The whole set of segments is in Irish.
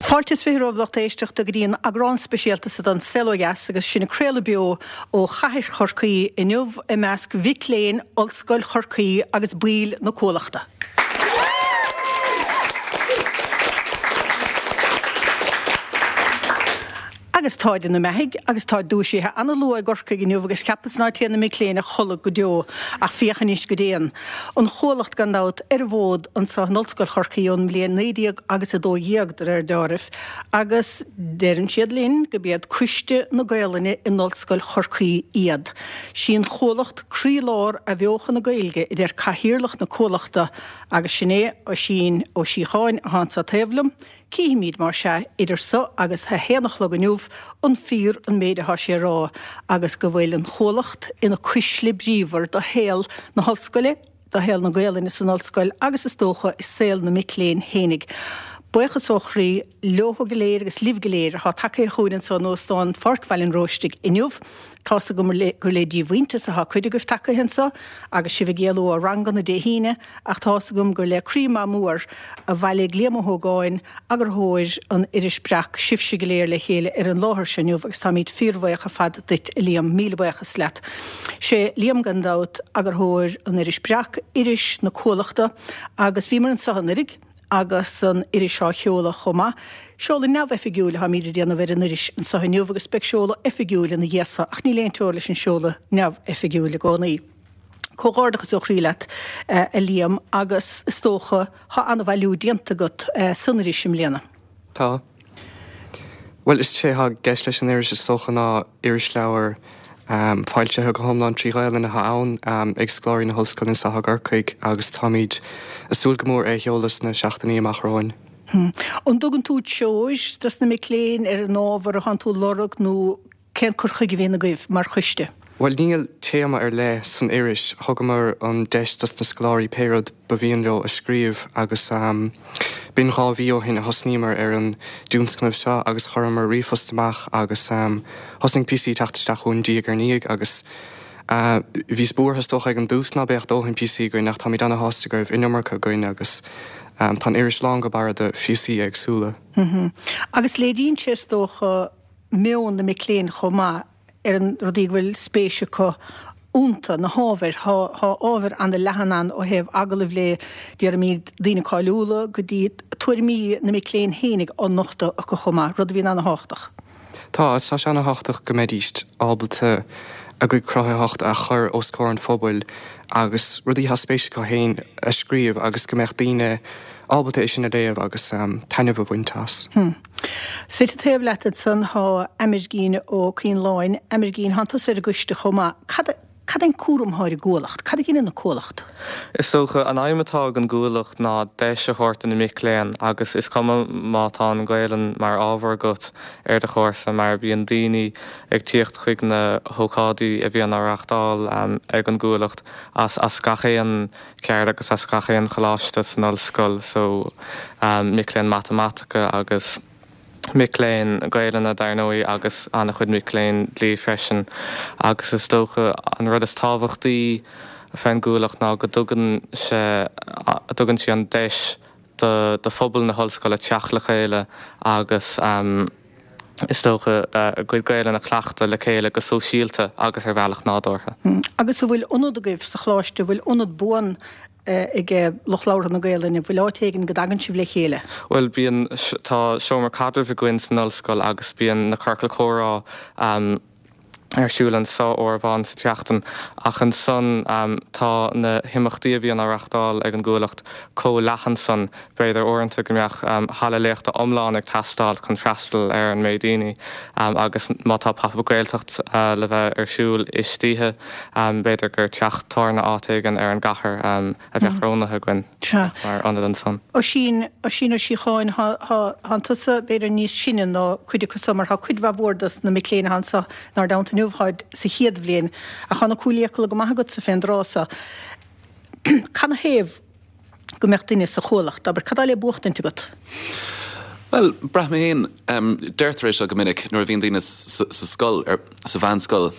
Fáilte is 20 romhaibh lucht éisteachta go dtí an eagrán speisialta seo den Saol Ó Dheas agus sinn ag craoladh beo ó chathair Chorcaí inniu i measc mhic léinn Ollscoil Chorcaí agus baill na Cuallachta. Agus táid ina mbeathaidh agus táid dúisithe ana-luath i gCorcaigh inniu agus cheapas ná téann na mic léinn a chodladh go deo ach féach anois go dtéann. An Chuallacht gan dabht ar an bhfód anso in Ollscoil Chorcaí ón mbliain 19 agus 12 de réir deáraimh agus deireann siad linn go b'iad Coiste na Gaolainne in Ollscoil Chorcaí iad. Sí an Chuallacht croílár athbheochan na Gaeilge a deir Cathaoirleach na Cuallachta agus sin é Oisín Ó Síocháin athá anso taobh liom. Cífimid, más ea, idir so agus a haon a chlog inniu, an fíor an méid athá sé a rá agus go bhfuil an Chuallacht ina cuisle bríomhar do shaol na hOllscoile, do shaol na Gaolainne san Ollscoil agus is dócha i saol na mic léinn fhéinig. Buíochas ó chroí leothu go léir agus libh go léir athá tagaithe chugainn anso in Óstán Pháirc Bhaile an Róistigh inniu. Tá's agam gur le díomhaointeas athá cuid agaibh tagaithe anso agus sibh ag éalú ó ranganna Dé hAoine, Ach tá's agam gur le croí maith mór a bhailigh Liam Ó hÓgáin, eagarthóir an iris Breac, sibhse go léir le chéile ar an láthair seo inniu agus táimid fíorbhuíoch ar fad duit, a Liam. Míle buíochas leat. Sé Liam, gan dabht, eagarthóir an iris Breac, iris na Cuallachta, agus bhíomar anso anuiridh agus an iris á sheoladh chomh maith. Seoladh neamhoifigiúil atáimid a déanamh ar an iris anso inniu agus beidh seoladh oifigiúil ina dhiaidh so ach níl aon teora leis an seoladh neamhoifigiúil i gcónaí. Comhghairdeachas ó chroí leat, a Liam, agus is dócha, thá an-bhailiú déanta agat san iris i mbliana. Tá. Bhuel, is é atá i gceist leis an iris is dócha ná irisleabhar foilsithe go hiomlán trí Ghaelainn atá ann ag scoláirí na hOllscoile anseo i gCorcaigh agus táimid ag súil go mór é a sheoladh sna seachtainí amach romhainn. An dtugann tú treoir dos na mic léinn ar an ábhar atánn tú a lorg nó Cén cur chuige a bhíonn agaibh mar choiste? Bhuel, níl téama ar leith san iris. Thugamar an deis dos na scoláirí pé rud ba mhian leo a scríobh agus b'in dhá mhí ó shin a thosnaíomar ar an dtionscnamh seo agus chuireamar ríomhphost amach agus thosnaigh píosaí ag teacht isteach chugainn diaidh ar ndiaidh agus bhíos buartha is dócha ag an dtús ná beadh dóthain píosaí againn ach táimid ana-shásta go raibh an iomarca againn agus tá an iris lán go barra de phíosaí éagsúla. Agus léiríonn sé is dócha meon na mic léinn chomh maith ar na rudaí go bhfuil spéis acu iontu, na hábhair. Thá ábhar ana-leathan ann ó thaobh agallaimh le, déarfaimid, daoine cáiliúla go dtí tuairimí na mic léinn fhéinig á nochtadh acu chomh maith, rud a bhíonn ana-thábhachtach. Tá, tá sé ana-thábhachtach go mbeidíst ábalta a gcuid cruthaitheachta a chur os comhair an phobail agus rudaí atá spéis acu féin a scríobh agus go mbeadh daoine ábalta é sin a léamh agus taitneamh a bhaint as. Suite taobh leat ansan thá Amergin Ó Coileáin. Amergin, thánn tusa ar an gcoiste chomh maith. Cad, cad é an cúram athá ar an gCuallacht? Cad a dheineann an Cuallacht? Is dócha, an aidhm atá ag an gCuallacht ná deis a thabhairt do na mic léinn agus is cuma má tá an Ghaelainn mar ábhar agat ar do chúrsa mar bíonn daoine ag tíocht chuig na hócáidí a bhíonn á reáchtáil ag an gCuallacht as as gach aon ceard agus as gach aon choláiste san ollscoil so mic léinn matamaitice agus mic léinn Gaelainne dar ndóigh agus an-chuid mic léinn dlí freisin agus is dócha an rud is tábhachtaí fén gCuallacht ná go dtugann sé dtugann sí an deis do do phobal na hollscoile teacht le chéile agus is dócha, a gcuid Gaelainne a chleachtadh le chéile go sóisialta agus ar bhealach nádúrtha. Agus an bhfuil ionad agaibh sa choláiste, an bhfuil ionad buan ag lucht labhartha na Gaelainne, an bhfuil áit éigin go dtagann sibh le chéile? Bhuel, bíonn, tá seomra caidrimh againn san ollscoil agus bíonn na ciorcail chomhrá ar siúl anso uair amháin sa tseachtain ach ansan tá na himeachtaí a bhíonn á reachtáil ag an gCuallacht chomh leathan san, b'fhéidir uaireanta go mbeadh halla léachta iomlán ag teastáil chun freastal ar an méid daoine agus má tá Pop Up Gaeltacht le bheith ar siúl istoíche b'fhéidir gur teach tábhairne áit éigin ar an gcathair. a bheadh roghnaithe againn mar ionad ansan. Oisín, Oisín Ó Síocháin, thánn tusa b'fhéidir níos sine ná cuid acu so mar thá cuid mhaith mhór dos na mic léinn athá anso 'nár dteannta inniu, tháid sa chéad bhliain ach thá na cúil fhiacail go maith agatsa fén dtráth so. Canathaobh go mbeadh duine sa Chuallacht, abair, cad tá le buachtaint agat? Bhuel, braithim féin, deirtear é seo go minic nuair a bhíonn daoine sa scoil, sa mheánscoil,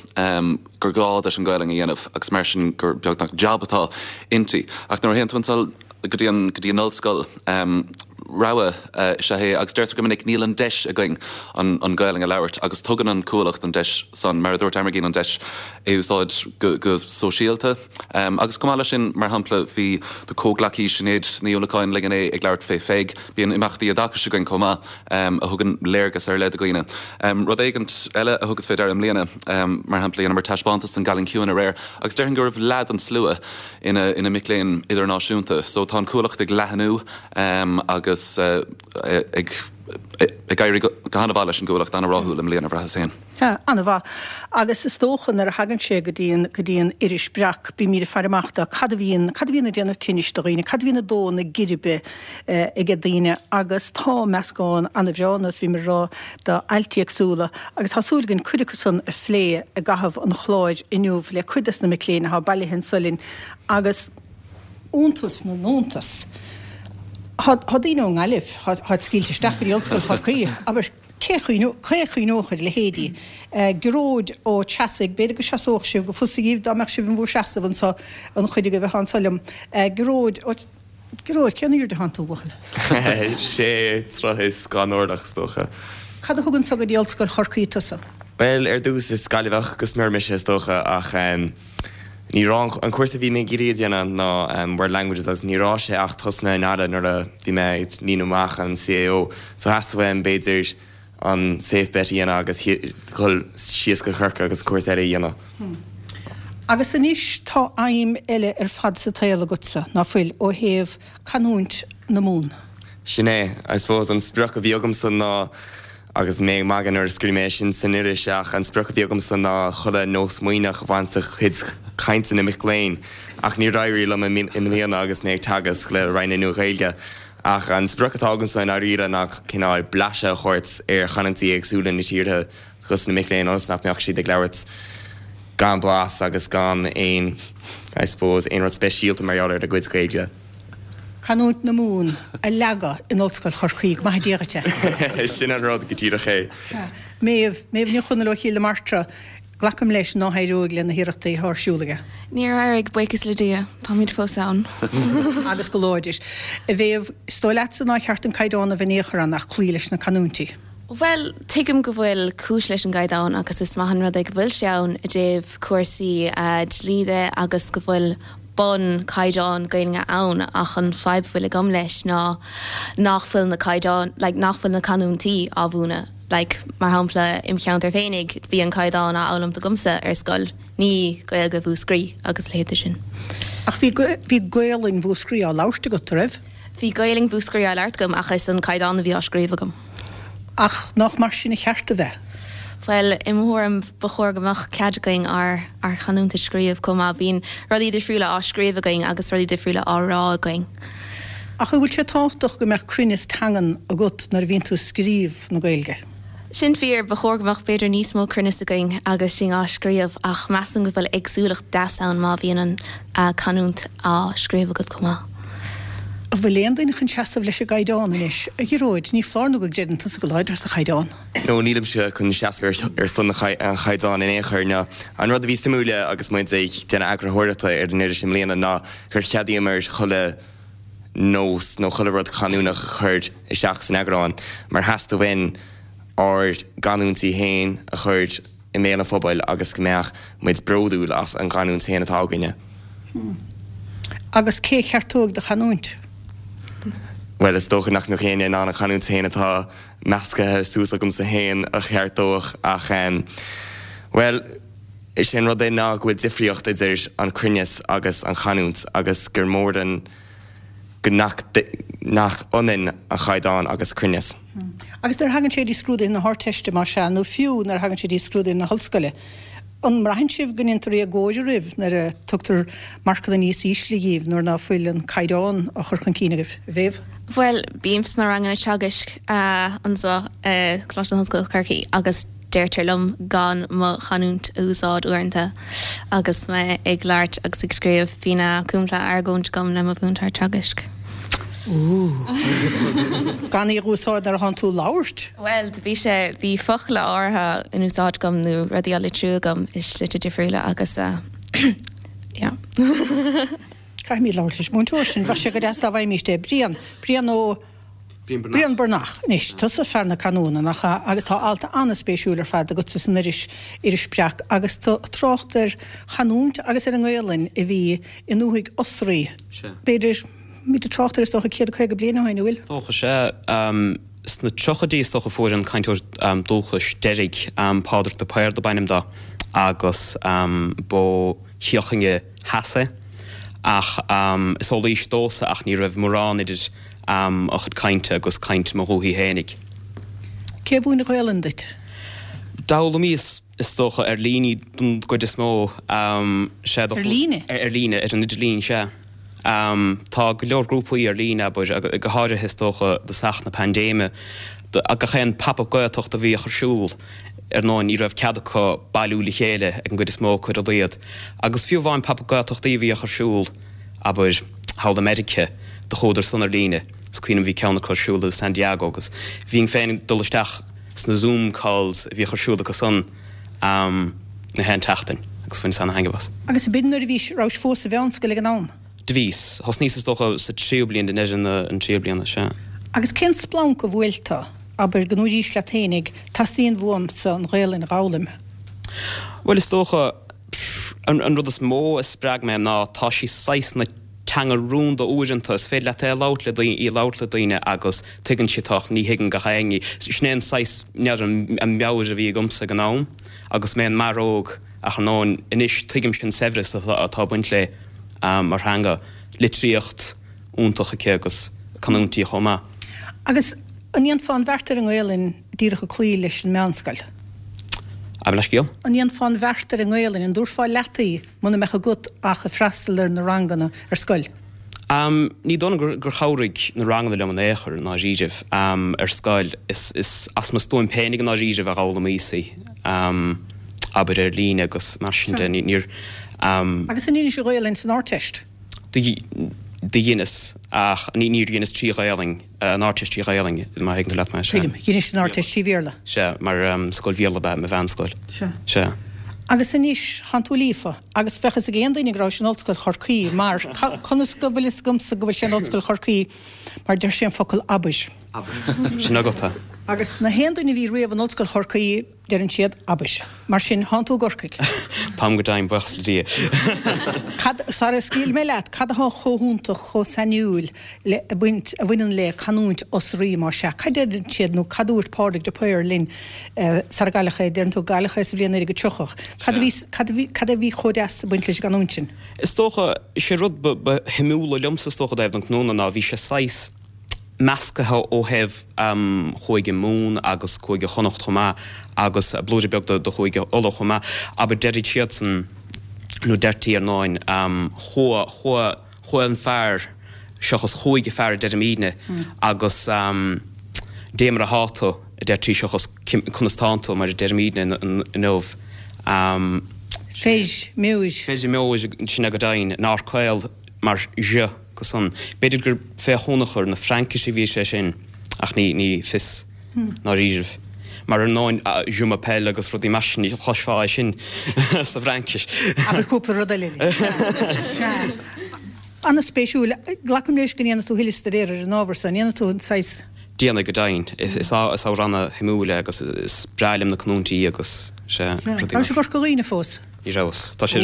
gur gá duit an Ghaelainn a dhéanamh agus mar sin gur beagnach jab atá inti. Ach nuair a théann tú anso go dtí an, go dtí an ollscoil. Rogha is ea é agus deirtear go minic níl an deis againn an Ghaelainn a labhairt agus tugann an Cuallacht an deis san, mar a dúirt Amergin, an deis é a úsáid go sóisialta. Agus chomh maith leis sin, mar shampla, bhí do chomhghleacaí Sinéad Ní Uallacháin linn inné ag labhairt fé Pheig. Bíonn imeachtaí oideachais againn chomh maith a thugann léargas ar leith do dhaoine. Rud éigint eile a thugas fé deara i mbliana, mar shampla, dheineamar taispeántas den gCailín Ciúin aréir agus déarfainn go raibh leath den slua ina ina mic léinn idirnáisiúnta. So tá an Cuallacht ag leathnú agus ag ag éirí go han-mhaith leis an gCuallacht, an-ráthúil i mbliana, bhraitheas féin. Sea, an-mhaith. Agus is dócha nuair a thagann sé go dtí an, go dtí an iris Breac, bímid ag faire amach do cad a bhíonn, cad a bhíonn ag déanamh tinnis do dhaoine, cad a bhíonn ag dó na geirbe aige daoine agus tá meascán an-bhreá, nós bhíomar ag rá, d'ailt éagsúla agus tá súil againn cuid acu san a phlé i gcaitheamh an chláir inniu le cuid des na mic léinn atá bailithe anso linn agus iontas na n-iontas, tá daoine ón nGaillimh, táid scaoilte isteach go dtí Ollscoil Chorcaí, abair, cé a chuimhneodh ar a leithéidí? Gearóid Ó Treasaigh, b'fhéidir go seasódh sibh go fusa dhíbh dá mbeadh sibh in bhur seasamh anso, an chuid agaibh atá anso liom. Gearóid Ó. Gearóid, cén airde atánn tú, a bhuachaill? Sé troigh is 2 orlach, is dócha. Cad a thug anso go dtí Ollscoil Chorcaí tusa? Bhuel, ar dtús, is Gaillimheach go smior mise, is dócha, ach ní raibh an cúrsa a bhí mé ag iarraidh a dhéanamh ná World Languages agus ní raibh sé ach tosnaithe i nGaillimh nuair a bhí mé ag líonadh amach an CAO, so theastaigh uaim, b'fhéidir, an safe bet a dhéanamh agus dhul síos go Corcaigh agus cúrsa eile a dhéanamh. Agus anois tá aidhm eile ar fad sa tsaol agatsa, ná fuil, ó thaobh canúint na Mumhan? Sin é. I suppose an sprioc a bhí agamsa ná, agus mé ag magadh nuair a scríobh mé é sin san iris, ach an sprioc a bhí agamsa ná chuile nós Muimhneach a bhaint de chuid cainte na mic léinn. Ach níor éirigh liom i mbliana agus mé ag teagasc le Roinn na Nua-Ghaeilge. Ach an sprioc atá agamsa i ndáiríre ná cineál blaiseadh a thabhairt ar chanúintí éagsúla na tíortha dos na mic léinn ionas nach mbeadh siad ag labhairt gan blas agus gan aon, I suppose, aon rud speisialta mar gheall ar a gcuid Gaeilge. Canúint na Mumhan a leagadh in Ollscoil Chorcaí, go maithe Dia dhuit é. Sin an rud go díreach é. Sea. Méabh, Méabh Ní Chonaill ó Chill na Martra. Glacaim leis nár éirigh le na hiarrachtaí atá ar siúl aige. Níor éirigh, buíochas le Dia. Táimid fós ann. Agus go láidir. A Mhéabh, is dóigh leatsa nár cheart an caighdeán a bheith in aon chor ann ach cloí leis na canúintí. Bhuel, tuigim go bhfuil cúis leis an gcaighdeán agus is maith an rud é go bhfuil sé ann i dtaobh cúrsaí dlí de agus go bhfuil bun caighdeán Gaeilge ann ach an fadhb a bhfuil agam leis ná nach bhfuil na caighdeáin, like nach bhfuil na canúintí á mhúineadh. Like, mar shampla, im cheantar féinig, bhí an caighdeán á fhoghlaimt agamsa ar scoil, ní Gaeilge Mhúscraí agus a leithéid de sin. Ach bhí, bhí Gaolainn Mhúscraí á labhairt agat, a raibh? Bhí Gaolainn Mhúscraí á labhairt agam ach is an caighdeán a bhí á scríobh agam. Ach nach mar sin a cheart a bheith? Bhuel, i mo thuairim, ba chóir go mbeadh cead againn ár, ár chanúint a scríobh chomh maith. Bíonn rudaí difriúla á scríobh againn agus rudaí difriúla á rá againn. Ach an bhfuil sé tábhachtach go mbeadh cruinneas teangan agat nuair a bhíonn tú ag scríobh na Gaeilge? Sin fíor, ba chóir go mbeadh b'fhéidir níos mó cruinneas againn agus sinn á scríobh ach measaim go bhfuil éagsúlacht deas ann má bhíonn an canúint á scríobh agat chomh maith. An bhfuil aon duine chun seasamh leis an gcaighdeán anois? A Ghearóid, ní foláir nó go gcreideann tusa go láidir sa chaighdeán. No, nílimse chun seasamh ar son an chaighdeáin in aon chor. No. An rud a bhí suimiúil agus muid ag déanamh eagarthóireachta ar an iris i mbliana ná gur cheadaíomar chuile nós nó chuile rud canúnach a chur isteach san eagrán mar theastaigh uainn ár gcanúintí féin a chur i mbéal an phobail agus go mbeadh muid bródúil as an gcanúint féin atá againne. Agus cé a cheartóidh do chanúint? Bhuel, is dócha nach mbeadh éinne in ann an chanúint féin atá meascaithe suas agamsa féin a cheartódh ach, bhuel, Is é an rud é ná go bhfuil difríocht idir an cruinneas agus an chanúint agus gur mór an go nach nach ionann an chaighdeán agus cruinneas. Agus nuair a thagann sé go dtí scrúduithe na hArdteiste, más ea, nó fiú nuair a thagann sé go dtí scrúduithe na hollscoile, an mbraitheann sibh go ndéantar éagóir oraibh nuair a tugtar marcanna níos ísle dhíbh nuair ná fuil an caighdeán á chur chun cinn agaibh? A Mhéabh? Bhuel, bím sna ranganna teagaisc anseo i Coláiste na hOllscoile Corcaigh agus Deirtear liom gan mo chanúint a úsáid uaireanta agus mé ag labhairt agus ag scríobh. Bhí cúpla argóint agam le mo mhúinteoir teagaisc. Ooh. Gan í a úsáid nuair atánn tú ag labhairt? Bhuel, bhí sé, bhí focla áirithe in úsáid agam nó rudaí á litriú agam i slite difriúla agus yeah. Caithfimid labhairt leis an múinteoir sin. Bheadh sé go deas dá bhfaighimíst é. Brian. Brian Ó. Brian Breathnach. Anois, tusa fear na canúna, nach ea? Agus tá alt an-spéisiúil ar fad agatsa san iris, Iris Breac, agus tú ag trácht ar chanúint agus ar an nGaelainn a bhí i ndúthaigh Osraí. B'fhéidir, muid ag trácht ar is dócha 150 bliain ó shin, an bhfuil? Is dócha, sea. Sna tríochaidí is dócha a fuair an cainteoir dúchais deiridh, Pádraig de Paor dob ainm dó, agus b'ó Chill Chainnigh Theas é. Ach is ó Laois domhsa ach ní raibh mórán idir a chuid cainte agus caint mo dhúthaigh fhéinig. Cé a mhúin an Ghaelainn duit? D'fhoghlaimíos is dócha ar líne don gcuid is mó. Sea. Ar líne? Ar líne, ar an idirlíon, sea. Tá go leor grúpaí ar líne, abair, go háirithe is dócha i dtosach na paindéime. Gach aon Pop-Up Gaeltacht a bhíodh ar siúl, ar ndóigh, ní raibh cead acu bailiú le chéile ag an gcuid is mó acu ar a laghad. Agus fiú amháin Pop-Up Gaeltachtaí a bhíodh ar siúl, abair, thall i Meiriceá, do chuadar san ar líne. Is cuimhin liom bhí ceann acu ar siúl i San Diego agus bhínn féin ag dul isteach sna Zoom calls a bhíodh ar siúl acu san na haon tseachtain agus bhaineas ana-thaitneamh as. Agus b'in nuair a bhís, rabhais fós sa mheánscoil ag an am? Do bhíos. Thosnaíos is dócha sa tríú bliain, i ndeireadh an tríú bliana, sea. Agus cén splanc a bhuail tú, abair, go ndúraís leat fhéinig, teastaíonn uaimse an Ghaelainn a dh'fhoghlaim? Bhuel, is dócha, an rud is mó a spreag mé ná tá sí saghas ina teanga rúnda uaireanta, is féidir leat é a labhairt le daoine, í a labhairt le daoine agus tuigeann siad tú ach ní thuigeann gach éinne í. Sin é an saghas, n'fheadar, an meabhair a bhí agamsa ag an am agus mé i m'fhear óg ach ar ndóigh anois tuigimse an saibhreas atá ag baint léi mar theanga, litríocht iontach aici agus canúintí chomh maith. Agus an ndéanfá an bheart ar an nGaelainn díreach ag cloí leis an meánscoil? Gabh mo leithscéal? An ndéanfá an bheart ar an nGaelainn, an dtabharfá leat í muna mbeadh agat ach ag freastal ar na ranganna ar scoil? Ní dóigh liom gur chabhraigh na ranganna liom in aon chor, i ndáiríribh, ar scoil. Is as mo stuaim féinig i ndáiríribh a dh'fhoghlaimíos í, abair ar líne agus mar sin de. Níor. Agus an ndeinis an Ghaelainn san Ardteist? Do dheineas, ach níor dheineas trí Ghaelainn, an Ardteist trí Ghaelainn, má thuigeann tú leat mé. Tuigim. Dheinis an Ardteist trí Bhéarla? Sea, mar scoil Bhéarla ab ea mo mheánscoil. Sea. Sea. Agus anois, thánn tú líofa, agus bheadh fhios ag aon duine go rabhais in Ollscoil Chorcaí, mar, conas go bhfuil fhios agamsa go bhfuil sé in Ollscoil Chorcaí, mar deir sé an focal abair. Abair. Sin agat é. Agus na haon duine a bhí riamh in Ollscoil Chorcaí, Deireann siad, abair. Mar sin, thánn tú i gCorcaigh. Táim go deimhin, buíochas le Dia. Cad, sara scaoilfidh mé leat, cad atá chomh hiontach, chomh sainiúil le, a bhaint, a bhaineann le canúint Osraí, más ea? Cad a deireann siad, nó cad a dúirt Pádraig de Paor linn sara gcailleadh é, deireann tú, cailleadh é sa bhliain 1930. Cad a bhí, cad a bhí, cad a bhí chomh deas ag baint leis an gcanúint sin? Is dócha, sé rud ba, ba shuimiúla liomsa, is dócha, i dtaobh den canúna ná bhí sé saghas, meascaithe ó thaobh Chúige Mumhan agus Cúige Chonnacht chomh maith agus blúire beag de Chúige Uladh chomh maith. Abair, deirid siadsan, nó deirtí ar ndóin, chuaigh, chuaigh, chuaigh an fear seachas chuaigh an fear a deirimídne agus dé mar athá tú a deirtí seachas conas tánn tú mar a deirimídne inniu. Feis, meois. Feis, meois, sin é go deimhin, an R caol mar zh. go san. B'fhéidir gur fé thionchar na Fraincise a bhí sé sin ach ní ní fios ndáiríribh. Mar ar ndóin je m'appelle agus rudaí mar sin ní chloisfeá é sin sa bhFraincis. Abair cúpla rud eile linn. Sea. An-spéisiúil. Glacaim leis go ndéanfaidh tú thuilleadh staidéir ar an ábhar so. An ndéanfaidh tú an saghas. Déanfaidh go deimhin. Is ábhar ana-shuimiúil é agus is breá liom na canúintí agus sea, rudaí mar. Rabhais i gCorca Dhuibhne fós? Ní rabhas. Tá sé.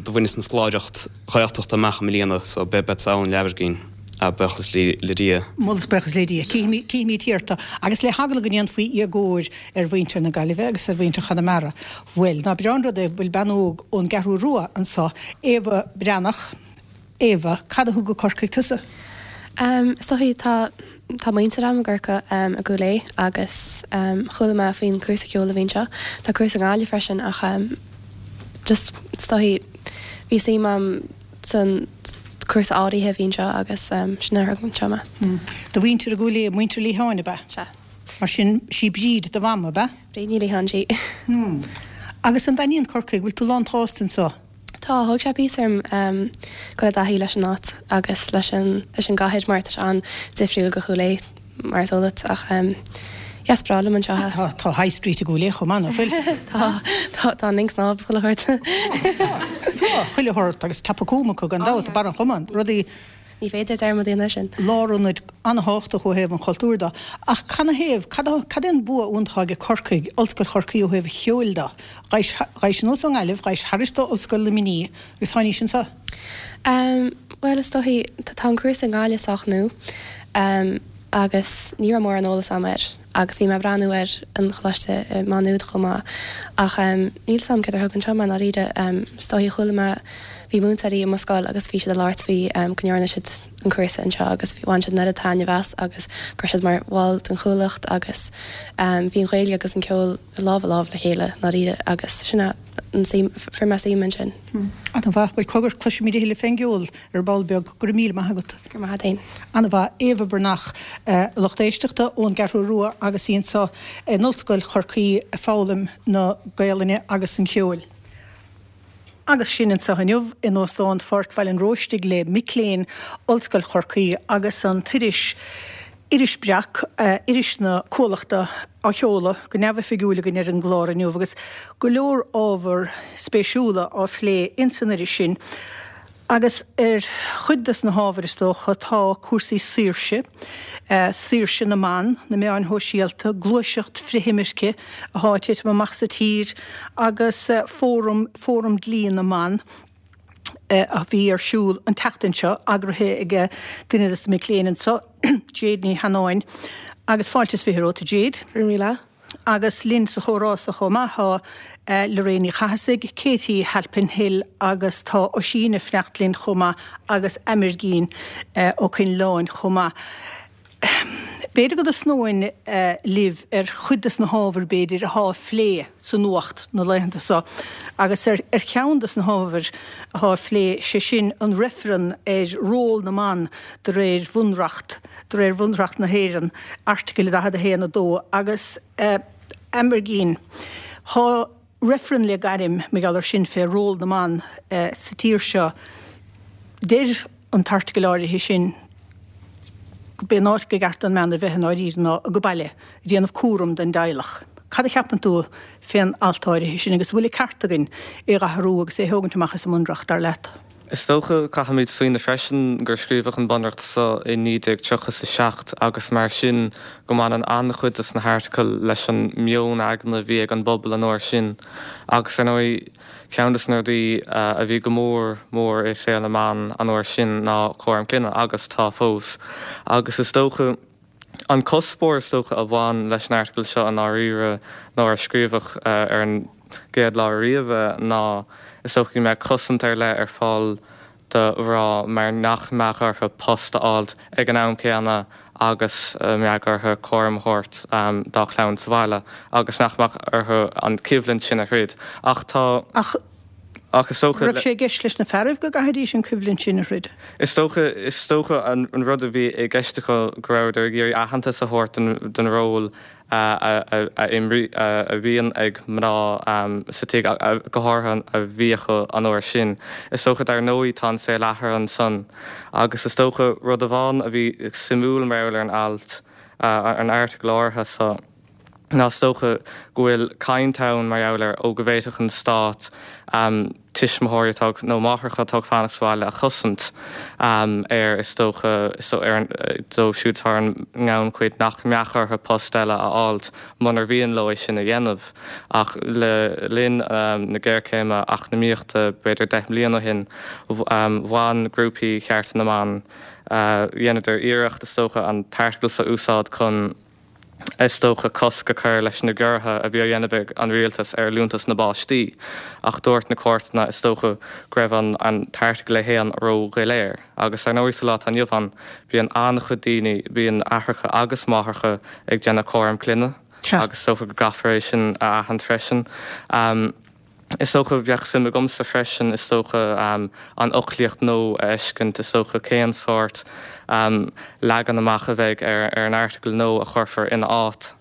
Do bhaineas an scoláireacht Ghaeltachta amach i mbliana so beadsa ann leathuair buíochas le Dia. Moladh is buíochas le Dia. Cífimid thiar tú. Agus le heagla go ndéanfaí éagóir ar mhuintir na Gaillimhe agus ar mhuintir Chonamara, bhuel, ná breá an rud é go bhfuil bean óg ón gCeathrú Rua anso, Éabha Breathnach. Éabha, cad a thug go Corcaigh tusa? Is dóichí, tá tá muintir agam i gCorcaigh, i gCúil Aodha agus chuala mé faoin cúrsa ceoil a bhí anseo. Tá cúrsa i nGaillimh freisin ach just is dóichí bhí suim agam san cúrsa áirithe a bhí anseo agus sin a thug anseo mé. Do mhuintir i gCúil Aodha, muintir Liatháin ab ea? Sea. Mar sin, sí Bríd do mham, ab ea? Bríd Ní Liatháin, sí. Agus an dtaitníonn Corcaigh, bhfuil tú lán tsásta anseo? Tá, thóg sé píosa orm dul i dtaithí leis an áit agus leis an leis an gcathair mar tá sé an-difriúil go Chúil Aodha mar is eol duit ach yeah is breá liom anseo. Tá, tá High Street i gCúil Aodha chomh maith, nach bhfuil? Tá, tá, tá an linn snámha is chuile shórt. Tá, tá, chuile shórt agus Tapacúm acu gan dabht, Barr an Chomáin, rudaí. Ní féidir dearmad a dhéanamh air sin. Lárionad an-thábhachtach ó thaobh an chultúir de. Ach canathaobh, cad cad é an bua iontach atá ag Corcaigh, Ollscoil Chorcaí ó thaobh an cheoil de? Ghabhais, ghabhais anuas ón nGaillimh, ghabhais thairis do Ollscoil Luimnigh agus tháinís anseo. Bhuel, is dóichí, tá an cúrsa i nGaillimh sách nua agus ní raibh mórán eolas agam air agus bhí mé ag breathnú ar an choláiste i Má Nuad chomh maith ach níl 'fhios a'm céard a thug anseo mé i ndáiríre. Is dóichí chuala mé, bhí múinteoirí i mo scoil agus bhí siad ag labhairt faoi go ndearna siad an cúrsa anseo agus bhain siad an oiread taitneamh as agus go raibh siad mar bhall den Chuallacht agus bhí an Ghaeilge agus an ceol lámh i lámh le chéile i ndáiríre agus sin é an suim, fuair mé suim ansin. An-mhaith. Bhuel, cogar, cloisfimid a thuilleadh fén gceol ar ball beag. Go raibh míle maith agat. Go raibh maith agat fhéin. An-mhaith. Éabha Breathnach, a lucht éisteachta, ón gCeathrú Rua agus í anseo in Ollscoil Chorcaí ag foghlaim na Gaelainne agus an cheoil. Agus sinn anseo inniu in Óstán Pháirc Bhaile an Róistigh le mic léinn Ollscoil Chorcaí agus an t-iris Iris Breac, iris na Cuallachta, á sheoladh go neamhoifigiúil againn ar an gclár inniu agus go leor ábhar spéisiúla á phlé ins an iris sin. Agus ar chuid des na hábhair is dócha tá cúrsaí saoirse, saoirse na mban, na meáin shóisialta, gluaiseacht frith-imirce athá ag titim amach sa tír agus fóram, Fóram Dlí na mBan a bhí ar siúl an tseachtain seo, eagraithe ag duine des na mic léinn anseo, Jade Ní Sheanáin. Agus fáilte is 20 romhat a Jade. Go raibh míle. Agus linn sa chomhrá so chomh maith tá Lorraine Ní Chathasaigh, Katie Halpin-Hill agus tá Oisín ag fanacht linn chomh maith agus Amergin Ó Coinleáin chomh maith. B'fhéidir go dtosnóinn libh ar chuid des na hábhair b'fhéidir athá á phlé sa nuacht na laethanta so agus ar cheann des na hábhair athá á phlé, sé sin an reifreann ar ról na mban de réir bhunreacht De réir Bhunreacht na hÉireann, Airteagail 41, 2, agus Amergin, thá reifreann le gairm mar gheall ar sin fé ról na mban sa tír seo. Deir an t-airteagal áirithe sin go b'é an áit go gceart don mbean a bheith i ndáiríre ná age baile, ag déanamh cúram don dteaghlach. Cad a cheapann tú fén alt áirithe sin agus an bhfuil an ceart againn é dh'athrú agus é thógaint amach as an mBunreacht, dar leat? Is dócha, caithfimid smaoineamh freisin gur scríobhadh an Bunreacht seo i 1937 agus mar sin go mbaineann an-chuid de na hairteagail leis an meon aigne a bhí ag an bpobal an uair sin. Agus ar ndóigh, ceann de na rudaí a bhí go mór mór i saol na mban an uair sin ná cúram clainne, agus tá fós. Agus is dócha. An cuspóir is dócha a bhain leis an airteagal seo i ndáiríre nuair a scríobhadh ar an gcéad lá ariamh é ná is dócha go mbeadh cosaint ar leith ar fáil do mhná mar nach mbeadh orthu post a fháilt ag an am céanna agus a mbeadh orthu cúram a thabhairt dá chlann sa bhaile agus nach mbeadh orthu an choimhlint sin a throid. Ach tá. Ach Ach is dócha. Raibh sé i gceist leis na fearaibh go gcaithfidís an coimhlint sin a throid? Is dócha, is dócha an rud a bhí i gceist acu go rabhadar ag iarraidh aitheantas a thabhairt don ról a a bhíonn ag mná sa tigh, go háirithe a bhí acu an uair sin. Is dócha, dar ndóigh, tá an saol athraithe ansan agus is dócha rud amháin a bhí suimiúil mar gheall ar an alt, an airteagal áirithe so, ná is dócha go bhfuil caint ann mar gheall ar ó go bhféadfadh an stát tuismitheoirí atá nó máithreacha atá ag fanacht sa bhaile a chosaint ar is dócha ar an dóibh siúd atá ar an ngannchuid nach mbeadh orthu post eile a fháilt munar mhian leo é sin a dhéanamh. Ach le linn na géarchéime eacnamaíochta b'fhéidir 10 mbliana ó shin bhain grúpaí chearta na mban dheineadar iarracht is dócha an t-airteagal seo a úsáid chun is dócha, cosc a chur leis na giorruithe a bhí á dhéanamh ag an rialtas ar liúntas na bpáistí, ach dúirt na cúirteanna, is dócha, go raibh an t-airteagal é féin ró-dhoiléir. Agus ar ndóigh sa lá atá inniu ann, bíonn an-chuid daoine, bíonn aithreacha agus máithreacha ag déanamh cúram clainne agus is dócha go gcaithfear é sin a aithint freisin. Is dócha, bheadh suim agamsa freisin, is dócha, an fhoclaíocht nua a fheiscint, is dócha, cén sórt leagan amach a bheidh ar an airteagal nua a chuirfear ina áit.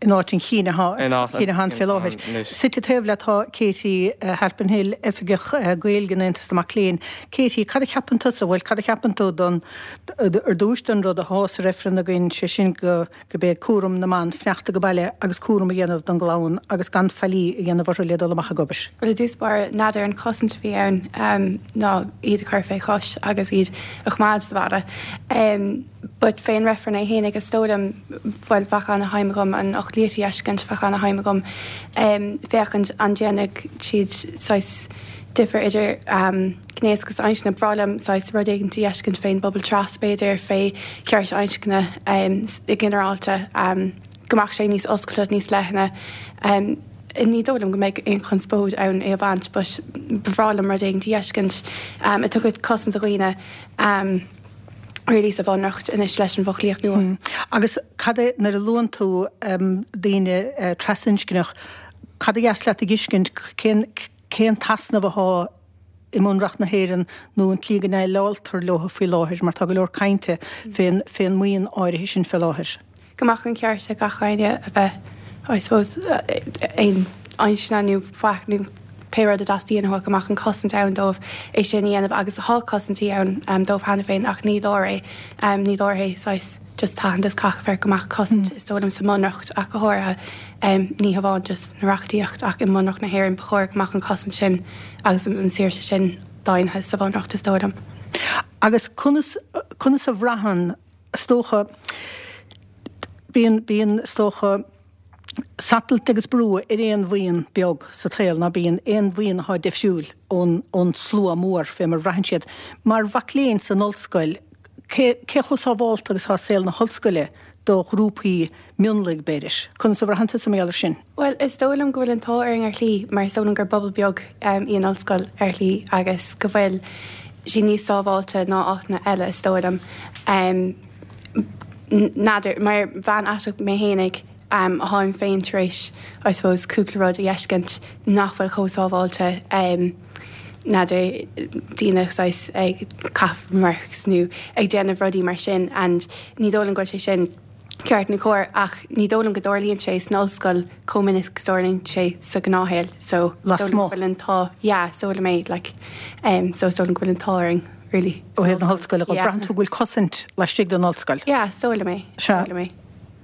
In áit an chinn atá ann fé láthair. Suite taobh leat tá Katie Halpin-Hill, Oifigeach Gaeilge in Aontas na Mac Léinn. Katie, cad a cheapann tusa, bhuel, cad a cheapann tú don, ar dtúis don rud athá sa reifreann againn, sé sin go, gurb é cúram na mban fanacht ag baile agus cúram a dhéanamh don gclann agus gan faillí a dhéanamh orthu le dul amach ag obair. Bhuel, i dtús báire, n'fheadar an chosaint a bhí ann ná iad a chur fé chois agus iad a choimeád sa bhaile. But fén reifreann é fhéinig, is dóigh liom, bhuel, bheadh ana-shuim agam an fhoclaíocht a fheiscint, bheadh ana-shuim agam féachaint an ndéanfadh siad saghas difear idir gnéas agus inscne. Ba bhreá liom saghas rud éigin a fheiscint fén bpobal tras, b'fhéidir, fé chearta inscne i ginearálta, go mbeadh sé níos oscailte, níos leithne. Ní dóigh liom go mbeidh aon chonspóid ann é a bhaint but ba bhreá liom rud éigin a fheiscint a dtabharfadh cosaint do dhaoine really sa bhunreacht anois leis an bhfoclaíocht nua. Agus cad é, nuair a luann tú daoine trasinscneach, cad a dheas leat a fheiscint, cén, cén t-easnamh athá i mBunreacht na hÉireann nó an tslí go ndéileáltar leo faoi láthair mar tá go leor cainte fén fén mbuíon áirithe sin fé láthair. Go mbeadh an ceart ag gach éinne a bheith, I suppose, aon inscne nó faic nó pé rud a dteastaíonn uathu, go mbeadh an cosaint ann dóibh é sin a dhéanamh agus tá cosaintí ann dóibh cheana féin ach ní leor é, ní leor é saghas just tathant is caithfear go mbeadh cosaint is dóigh liom sa mBunreacht ach go háirithe. Ní hamháin just na reachtaíocht ach i mBunreacht na hÉireann ba chóir go mbeadh an chosaint sin agus an saoirse sin daingnithe sa Bhunreacht is dóigh liom. Agus conas, conas a bhraitheann, is dócha, bíonn, bíonn, is dócha, satailt agus brú ar aon bhuíon beag sa tsaol, ná bíonn aon bhuíon atá difriúil ón, ón slua mór fé mar a bhraitheann siad. Mar mhac léinn san ollscoil, cé, cé chomh sábhálta agus atá saol na hollscoile do ghrúpaí mionlaigh, b'fhéidir. Conas a bhraitheann tusa mar gheall air sin? Bhuel, is dóigh liom go bhfuil an t-ádh orainn ar shlí, mar is dóigh liom gur bpobal beag í an ollscoil ar shlí agus go bhfuil sí níos sábháilte ná áiteanna eile, is dóigh liom. N'fheadar, mar bhean aiteach mé fhéinig, tháim féin tar éis, I suppose, cúpla rud a fheiscint nach bhfuil chomh sábháilte, n'fheadar, daoine saghas ag caitheamh remarks nó ag déanamh rudaí mar sin and ní dóigh liom go bhfuil sé sin ceart nó cóir ach ní dóigh liom go dtarlaíonn sé san ollscoil chomh minic is tarlaíonn sé sa ghnáthshaol so is dóigh liom go bhfuil an t-ádh yeah is dóigh liom é like um so is dóigh liom go bhfuil an t-ádh orainn really Ó thaobh na hollscoile dhe, braitheann tú go bhfuil cosaint laistigh den ollscoil? Yeah is dóigh liom é, is dóigh liom é.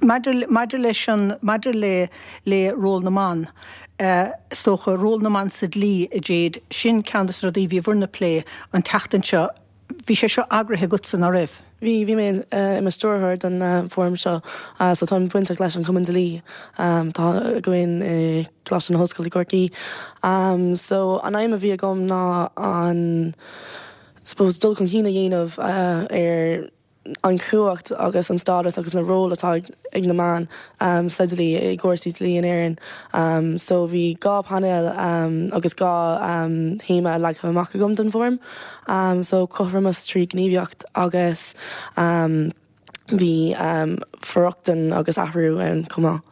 Maidir, maidir leis an, maidir le, le ról na mban, is dócha, ról na mban sa dlí, a Jade, sin ceann de na rudaí a bhí bhur n-plé an tseachtain seo. Bhí sé seo eagraithe agatsa, ná raibh? Bhí, bhí mé i mo stiúrthóir don fóram seo, so táim bainteach leis an Chumann Dlí atá againn i gColáiste na hOllscoile i gCorcaigh. So an aidhm a bhí agam ná an, suppose, dul chun cinn a dhéanamh ar an chumhacht agus an stádas agus na ról atá ag na mban sa dlí, i gcúrsaí dlí in Éirinn. So bhí 2 painéal agus 2 théama leagtha amach agam don bhfóram. So cothromas trí ghníomhaíocht agus bhí for-rochtain agus athrú ann chomh maith.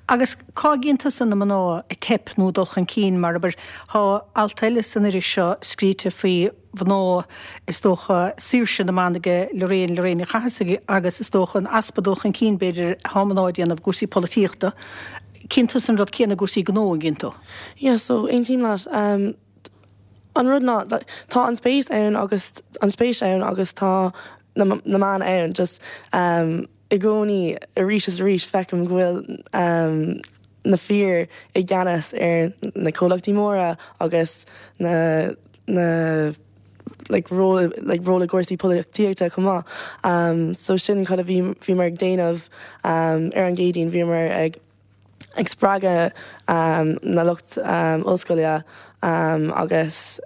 Agus cá gcíonn tusa na mná ag teip nó ag dul chun cinn mar abair, tá alt eile san iris seo scríte faoi mhná, is dócha, saoirse na mban ag Lorraine, Lorraine Ní Chathasaigh agus is dócha an easpa dul chun cinn b'fhéidir atá mná a dhéanamh i gcúrsaí polaitíochta. Cíonn tusa an rud céanna i gcúrsaí gnó, an gcíonn tú? Yeah, so aontaím leat. An rud ná, tá an spéis ann agus an spéis ann agus tá na meáin ann, just i gcónaí arís is arís feicim go bhfuil na fir i gceannas ar na comhlachtaí móra agus na na like ról like ról i gcúrsaí polaitíochta chomh maith. So sin cad a bhí bhíomar ag déanamh ar an gCéadaoin, bhíomar ag ag spreagadh na lucht ollscoile agus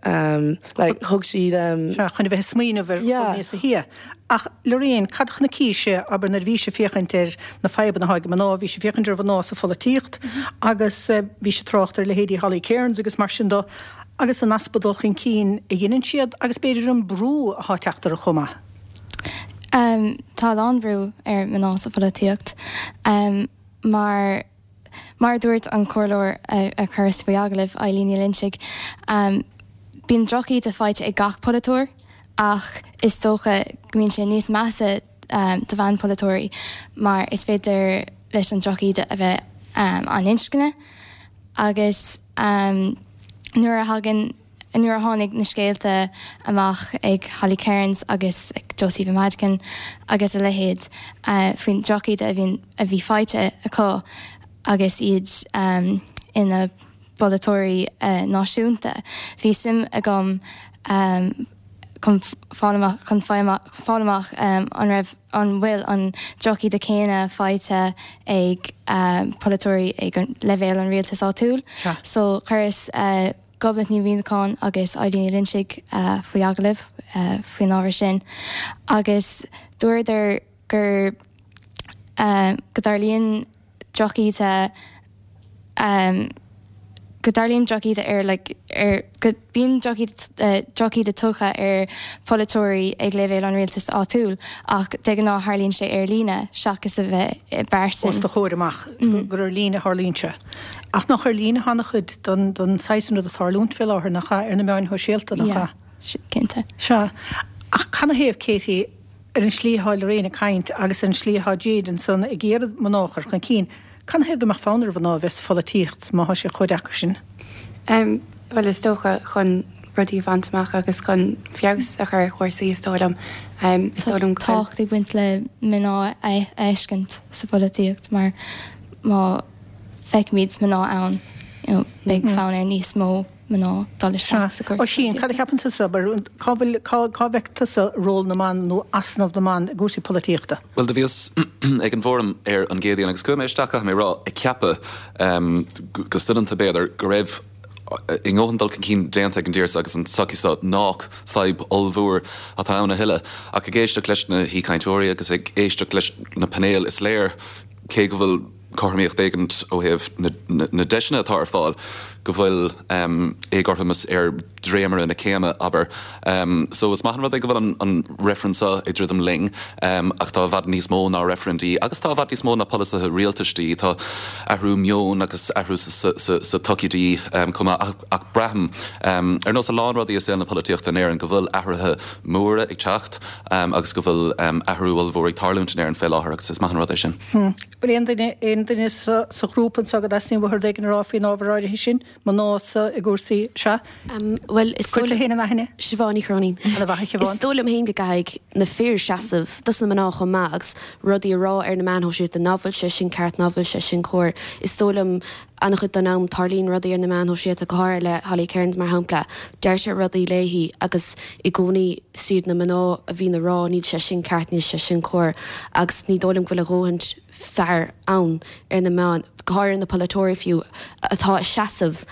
like thug siad. Sea, chun a bheith ag smaoineamh ar dhul níos sia. Ach Lorraine, cad a chonaicís-se, abair, nuair a bhís ag féachaint ar na fadhbanna atá ag mná, bhís ag féachaint ar mhná sa pholaitíocht agus bhís ag trácht ar leithéidí Holly Cairns agus mar sin de, agus an easpa dul chun cinn a dheineann siad agus b'fhéidir an brú atá ag teacht orthu chomh maith. Tá a lán brú ar mná sa pholaitíocht. Mar, mar a dúirt an comhairleoir a chuireas faoi agallamh, Eileen Ní Loinsigh, bíonn drochíde faighte ag gach polaiteoir ach is dócha go mbíonn sé níos measa do bhean-pholaiteoirí mar is féidir. leis an drochíde a bheith an inscne agus nuair a thagann nuair a tháinig na scéalta amach ag Holly Cairns agus ag Josepha Madigan agus a leithéid faoin drochíde a bhíonn a bhí faighte acu agus iad ina bpolaiteoirí náisiúnta. Bhí suim agam chun fáil amach chun fáil amach an raibh an bhfuil an drochíde céanna faighte ag polaiteoirí ag leibhéal an rialtais áitiúil. So chuireas Gobnait Ní Mhuimhneacháin agus Eilín Ní Loinsigh faoi agallamh faoin ábhar sin agus dúradar gur go dtarlaíonn drochíde go dtarlaíonn drochíde ar like ar go bíonn drochíde tugtha ar pholaiteoirí ag leibhéal an rialtais áitiúil ach de ghnáth tharlaíonn sé ar líne seachas a bheith i bpearsan. Os do chomhair amach gur ar líne a tharlaíonn sé. Ach nach ar líne atá an-chuid den den saghas sin rud ag tarlúint fé láthair, nach ea? Ar na meáin shóisialta, nach ea? Yeah, cinnte. Sea. Ach canathaobh, Katie, ar an slí atá Lorraine ag caint agus ar an slí atá Jade ansan ag iarraidh mná a chur chun cinn, canathaobh go mbeadh fonn ar mhná a bheith sa pholaitíocht má thá sé chomh deacair sin? Em, bhuel is dócha chun rudaí a bhaint amach agus chun feabhas a chur ar chúrsaí is dóigh liom. Em, is dóigh liom go Tá tábhacht ag baint le mná a fheiscint sa pholaitíocht mar má feicimid mná ann, you know, beidh fonn ar níos mó mná dul isteach sa gcúrsa Oisín, cad a cheapann tusa, abair, cá bhfuil, cá, cá bhfeiceann tusa ról na mban nó easnamh na mban i gcúrsaí polaitíochta? Bhuel, do bhíos ag an bhfóram ar an gCéadaoin agus chuaigh mé isteach, caithfidh mé a rá, ag ceapadh, go soineanta b'fhéidir, go raibh a ndóthain dul chun cinn déanta ag an dtír seo agus an tsochaí seo nách fadhb ollmhór atá ann a thuilleadh. Ach ag éisteacht leis na haoichainteoirí agus ag éisteacht leis na painéil is léir, cé go bhfuil cothromaíocht éigin ó thaobh na deiseanna atá ar fáil, go bhfuil éagothromas ar dhréimire na céime, abair. So is maith an rud é go bhfuil an reifreann seo ag druidim linn, ach tá i bhfad níos mó ná reifreann de dhíth, agus tá i bhfad níos mó ná polasaithe rialtais de dhíth. Tá athrú meoin agus athrú sa tsochaí de dhíth chomh maith, ach braithim, ar nós a lán rudaí i saol na polaitíochta in Éirinn, go bhfuil athruithe móra ag teacht agus go bhfuil athrú ollmhór ag tarlúint in Éirinn fé láthair agus is maith an rud é sin. Bhfuil aon duine, aon duine sa, sa ghrúpa anseo go dteastaíonn uathu rud éigin a rá faoin ábhar áirithe sin? Mná sa, i gcúrsaí, sea? Bhuel, is dóigh. Cuir tú féin in aithne. Siobhán Ní Chróinín. Ana mhaith, a Shiobhán. Is dóigh liom féin go gcaithfidh na fir seasamh dos na mná chomh maith agus rudaí a rá ar na meáin shóisialta ná bhfuil sé sin ceart, ná bhfuil sé sin cóir. Is dóigh liom an-chuid den am tarlaíonn rudaí ar na meáin shóisialta, go háirithe le Holly Cairns mar shampla, deirtear rudaí léi agus i gcónaí is iad na mná a bhíonn ag rá níl sé sin ceart, níl sé sin cóir agus ní dóigh liom go bhfuil a dhóthain fear ann ar na meáin, go háirithe na polaiteoirí fiú, atá ag seasamh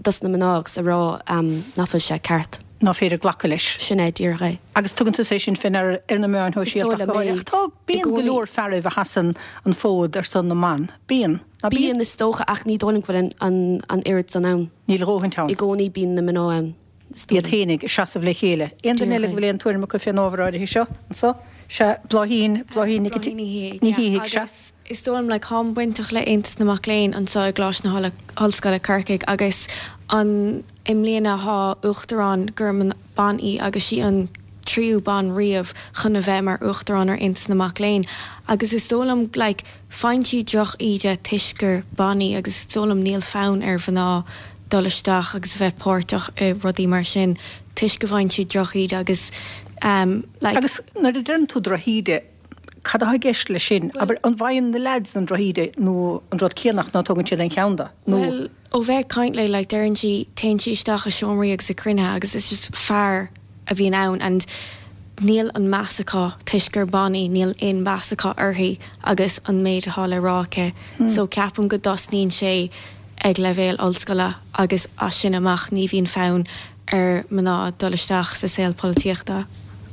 dos na mná agus ag rá nach bhfuil sé ceart. ná féidir glacadh leis. Sin é díreach é. Agus tugann tusa é sin fé ndeara ar na meáin shóisialta ach go háirithe. Ach tá, bíonn go leor fearaibh a sheasann an fód ar son na mban. Bíonn. Ná bíonn? Bíonn, is dócha, ach ní dóigh liom go bhfuil an oiread san ann. Níl a dhóthaint ann. I gcónaí bíonn na mná ann, is dóigh liom. Iad féinig ag seasamh le chéile. Aon duine eile go bhfuil aon tuairim acu fén ábhar áirithe seo anso? Sea, Bláithín, Bláithín Nic Ní Shíthigh, sea. Agus is dóigh liom, like, táim bainteach le Aontas na Mac Léinn anseo i gColáiste na hOllscoile, Corcaigh, agus an, i mbliana tá uachtarán gur bean í agus sí an tríú bean riamh chun a bheith mar uachtarán ar Aontas na Mac Léinn agus is dóigh liom, like, Faigheann sí droch-íde toisc gur bean í agus is dóigh liom níl fonn ar mhná dul isteach agus a bheith páirteach i rudaí mar sin toisc go bhfaigheann siad droch-íde agus like. Agus nuair a deireann tú drochíde, cad atá i gceist leis sin? Abair, an bhfaigheann na leaids an drochíde nó an rud céanna ach ná tógann siad aon cheann de? Nó. Bhuel, ó bheith ag caint léi, like, deireann sí, téann sí isteach i seomraí agus i cruinnithe agus it's just fear a bhíonn ann and níl an meas acu toisc gur bean í, níl aon mheas acu uirthi agus an méid atá le rá aici. So ceapaim go dtosnaíonn sé ag leibhéal ollscoile agus as sin amach ní bhíonn fonn ar mná dul isteach sa saol polaitíochta.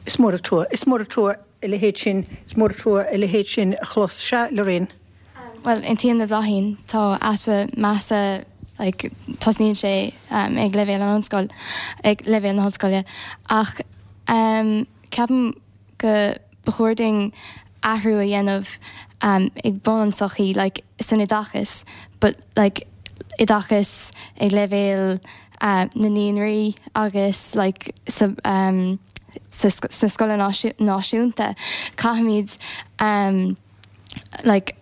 Is mór an trua, is mór an trua a leithéid sin, is mór an trua a leithéid sin a chlos. Sea, Lorraine. Bhuel, aontaím le Bláithín, tá easpa measa, like, tosnaíonn sé ag leibhéal an ollscoil, ag leibhéal na hollscoile. Ach ceapaim go ba chóir dúinn athrú a dhéanamh ag bun an tsochaí, like, san oideachas, but like oideachas ag leibhéal na naíonraí agus like sa sa sna scoileanna náisiúnta. Caithfimid. like.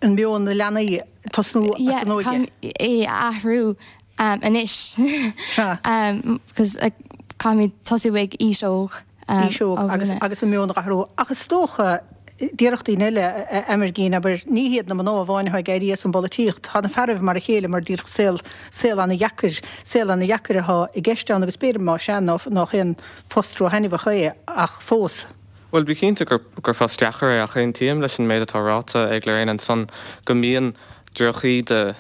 An meon na leanaí tosnú as an óige. Yeah, caithfimid é a athrú anois. Sea. Because caithfimid tosú ag aois óg. Aois óg agus agus an meon a athrú. Ach is dócha, déarfadh daoine eile, a Amergin, abair, ní hiad na mná amháin atá ag éirí as an bpolaitíocht, tá na fearaibh mar a chéile mar díreach saol, saol ana-dheacair, saol ana-dheacair atá i gceist ann agus b'fhéidir más ea nach aon phost ró-thaitneamhach é ach fós. Bhuel, bí cinnte gur gur phost deacair é ach aontaím leis an méid atá ráite ag Lorraine ansan go mbíonn drochíde,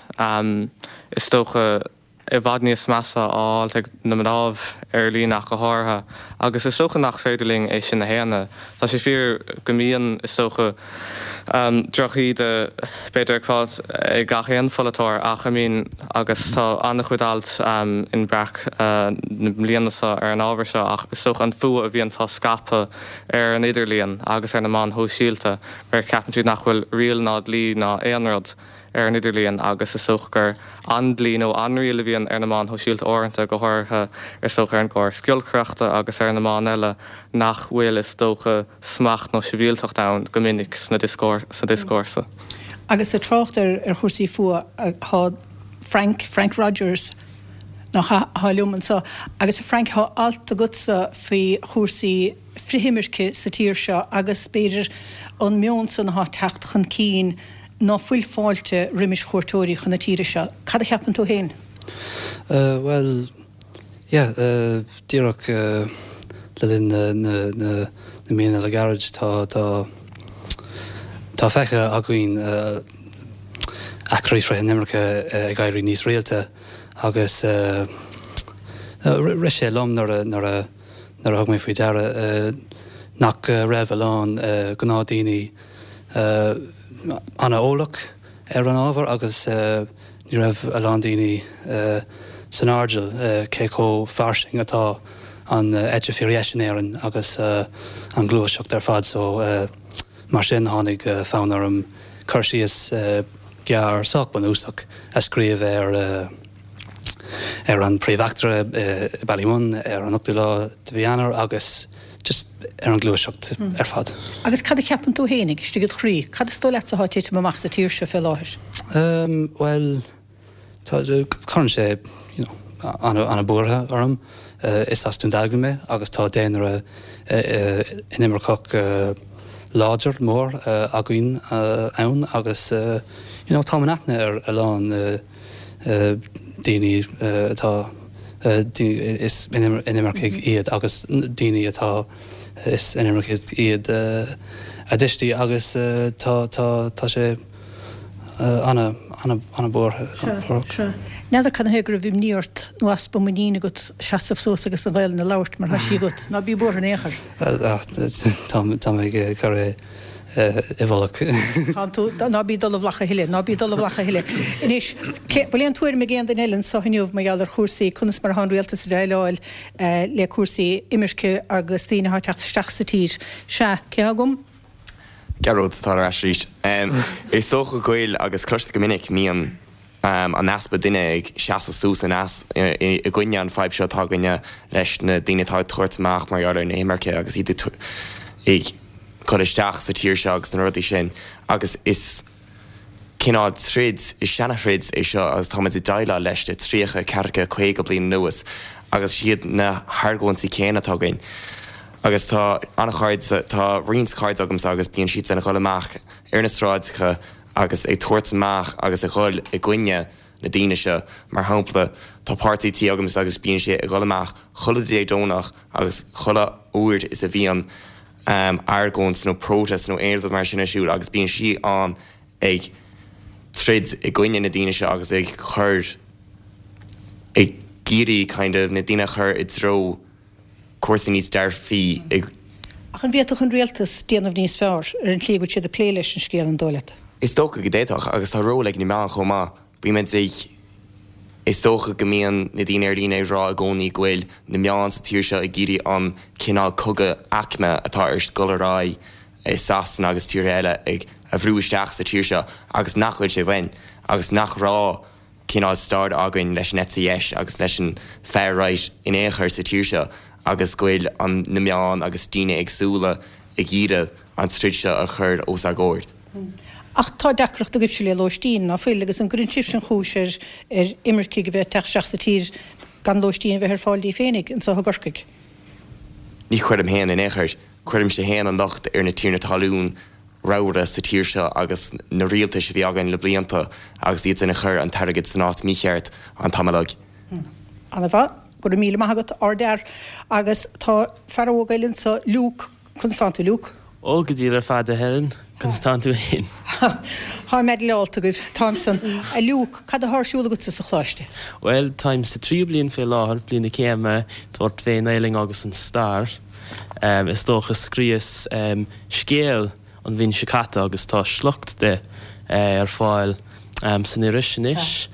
is dócha, i bhfad níos measa á fháilt ag na mnáibh ar líne ach go háirithe agus is dócha nach féidir linn é sin a shéanadh. Tá sé fíor go mbíonn, is dócha, drochíde b'fhéidir ag fáilt ag gach aon pholaiteoir ach I mean agus tá an-chuid alt in Breac na bliana seo ar an ábhar seo ach is dócha an fuath a bhíonn á scaipeadh ar an idirlíon agus ar na meáin shóisialta mar ceapann siad nach bhfuil riail ná dlí ná aon rud ar an idirlíon agus is dócha gur an dlí nó an riail a bhíonn ar na meáin shóisialta uaireanta, go háirithe is dócha ar an gcóras giolcaireachta agus ar na meáin eile, nach bhfuil is dócha smacht nó sibhialtacht ann go minic sna sa dioscúrsa. Agus ag trácht ar chúrsaí fuath, tá Frank, Frank Rogers, nach ea, atá liom anseo. Agus a Frank, tá alt agatsa faoi chúrsaí frithimirce sa tír seo agus b'fhéidir an meon san atá ag teacht chun cinn ná fuil fáilte roimis chuairteoirí chun na tíre seo. Cad a cheapann tú féin? Bhuel, yeah, díreach le linn na míonna le gairid tá, tá, tá feicthe againn eachtraí frith-inimirce ag éirí níos rialta agus rith sé liom nuair a, nuair a, nuair a thug mé faoi deara nach raibh a lán gnáthdhaoine an-eolach ar an ábhar agus ní raibh a lán daoine san airdeall cé chomh fairsing atá an eite fíordheis in Éirinn agus an ghluaiseacht ar fad so mar sin tháinig fonn orm cur síos gearr sách bunúsach a scríobh ar ar an príomheachtra i Ballymun ar an ochtú lá de mhí Eanáir agus just ar an ghluaiseacht ar fad. Agus cad a cheapann tú fhéinig, istigh id chroí, cad is dóigh leatsa atá ag titim amach sa tír seo fé láthair? Bhuel, tá, cuireann sé, you know, an-buartha orm. Is as Dún Dealgan mé agus tá daonra inimirceach láidir, mór againn ann agus, you know, táim in aithne ar a lán daoine atá, is inimircigh iad agus daoine atá, is inimircigh iad a dtuistí agus tá, tá, tá sé ana, ana, ana buartha. Sea, sea. N'fheadar cad ina thaobh go raibh imní ort nó easpa muiníne agat seasamh suas agus an Ghaelainn a labhairt mar tá sí agat. Ná bí buartha in aon chor. Bhuel, tá, tá mé ag cur é. i bhfolach. Tánn tú, ná bí ag dul i bhfolach a thuilleadh, ná bí ag dul i bhfolach a thuilleadh. Anois, cé, bhfuil aon tuairim ag aon duine eile anseo inniu mar gheall ar chúrsaí, conas mar atá an rialtas ag déileáil le cúrsaí imirce agus daoine atá ag teacht isteach sa tír? Sea, cé atá agam? Gearóid atá ar ais arís. Is dócha go bhfuil, agus cloistear go minic, mbíonn an easpa duine ag seasamh suas in i gcoinne an fadhb seo atá againne leis na daoine atá ag tabhairt amach mar gheall ar na himirce agus iad ag cur isteach sa tír seo agus na rudaí sin agus is cineál troid, is seana-throid é seo agus táimid ag déileáil leis le 30, 40, 50 bliain anuas agus is iad na hargóintí céanna atá againn agus tá an-chairde, tá roinnt cairde agamsa agus bíonn siadsan ag dul amach ar na sráideacha agus ag tabhairt amach agus ag dhul i gcoinne na daoine seo. Mar shampla, tá páirtí tí agamsa agus bíonn sé ag dhul amach chuile Dé Domhnach agus chuile uair is a bhíonn argóint nó protest nó aon rud mar sin ar siúl agus bíonn sí ann ag troid i gcoinne na daoine seo agus ag cur, ag iarraidh kind of na daoine a chur i dtreo cúrsaí níos dearfaí i. Ach an bhféadfadh an rialtas déanamh níos fearr ar an tslí go bhfuil siad ag plé leis an scéal, an dóigh leat? Is dócha go d'fhéadfadh, agus tá ról ag na meáin chomh maith. Bímid ag. Is dócha go mbíonn na daoine ar líne ag rá i gcónaí go bhfuil na meáin sa tír seo ag iarraidh an cineál cogadh aicme atá ar dul ar aghaidh i Sasana agus tíortha eile ag a bhrú isteach sa tír seo agus nach bhfuil sé uainn agus nach raibh cineál stair againn leis an eite dheis agus leis an far right in aon chor sa tír seo agus go bhfuil an na meáin agus daoine éagsúla ag iarraidh an troid seo a chur os ár gcomhair. Ach tá deacracht agaibhse le lóistín, ná fuil, agus an gcuireann sibhse an chúis ar ar imircigh a bheith ag teacht isteach sa tír gan lóistín a bheith ar fáil díobh féinig anso i gCorcaigh? Ní chuirim féin in aon chor. Cuirimse féin an locht ar na tiarnaí talún ramhra sa tír seo agus na rialtais a bhí againn le blianta agus iad san a chuir an t-airgead san áit mícheart an t-am uilig. Ana-mhaith. Go raibh míle maith agat, ardfhear. Agus tá fear óg eile anso, Luke. Conas tánn tú, Luke? Ó, go diail ar fad, a Helen. Conas tánn tú fhéin? Táim meidhleálta agaibh. Táim san. A Luke, cad athá ar siúl agatsa sa choláiste? Bhuel, táim sa tríú bliain fé láthair, bliain na céime, tabhairt fén nGaelainn agus an stair. Is dócha, scríos scéal an bhliain seo caite agus tá sliocht de ar fáil san iris anois.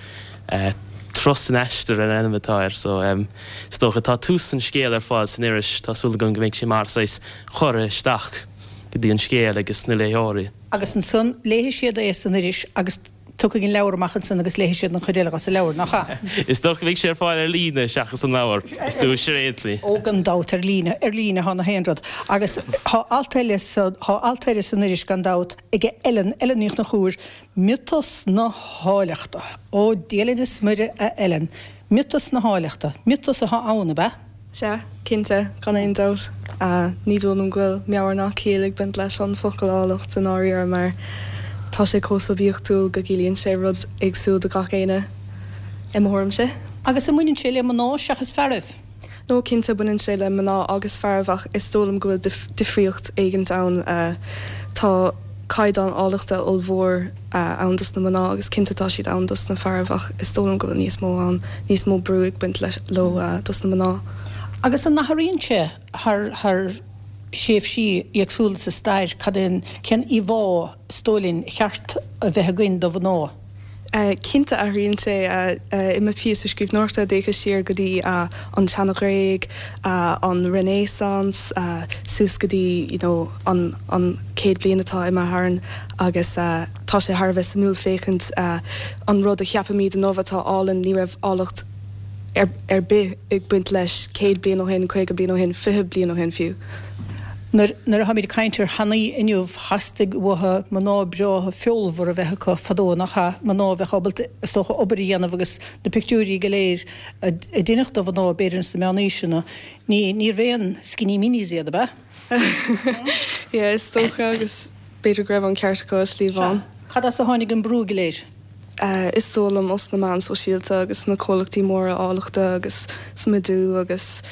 Turas san Aistear an ainm atá air so is dócha tá tús an scéil ar fáil san iris, tá súil agam go mbeidh sé mar saghas cuireadh isteach go dtí an scéal agus na léitheoirí. Agus ansan léifidh siad é san iris agus Tiocfaidh an leabhar amach ansan agus léifidh siad an chuid eile dhos an leabhar, nach ea? Is dócha go mbeidh sé ar fáil ar líne seachas an leabhar, dúis ar aon tslí. Ó, gan dabht, ar líne, ar líne thá na haon rud. Agus thá alt eile sa, thá alt eile san iris gan dabht aige Ellen, Ellen Ní Chonchúir, Miotas na hÁilleachta. Ó, Dia linn is Muire, a Ellen. Miotas na hÁilleachta. Miotas athá ann, ab ea? Sea, cinnte, gan aon dabht. Ní dóigh liom go bhfuil meabhair ná ciall ag baint leis an focal áilleacht i ndáiríre mar tá sé chomh suibiachtúil go gciallaíonn sé rud éagsúil do gach éinne, i mo thuairimse. Agus an mbaineann sé le mná seachas fearaibh? No, cinnte baineann sé le mná agus fearaibh ach is dóigh liom go bhfuil difríocht éigint ann. Tá caighdeán áilleachta ollmhór ann dos na mná agus cinnte tá siad ann dos na fearaibh ach is dóigh liom go bhfuil níos mó ann, níos mó brú ag baint leo dos na mná. Agus an n-athraíonn sé thar thar thréimhsí éagsúla sa stair, cad é an, cén íomhá is dóigh linn a cheart a bheith againn do mhná? Cinnte athraíonn sé. I mo phíosa scríbhneoireachta d'fhéachas siar go dtí an tSeana-Ghréig, an Renaissance, suas go dtí you know an an chéad bliain atá imithe tharainn agus tá sé thar a bheith suimiúil féachaint an rud a cheapaimid inniu atá álainn, ní raibh áilleacht ar bith ag baint leis 100 bliain ó shin, 50 bliain ó shin, 20 bliain ó shin fiú. Nuair nuair a tháimid ag caint ar thanaí inniu, theastaigh uathu mná breátha feolmhara a bheith acu fadó, nach ea? Mná a bheadh ábalta, is dócha, obair a dhéanamh agus na pictiúirí go léir a deineadh do mhná, b'fhéidir ins na meánaoiseanna, ní níorbh aon skinny minis iad, ab ea? Yeah, is dócha agus b'fhéidir go raibh an ceart acu i slí amháin. Sea. Cad as a tháinig an brú go léir? Is dóigh liom os na meáin sóisialta agus na comhlachtaí móra áilleachta agus smidiú agus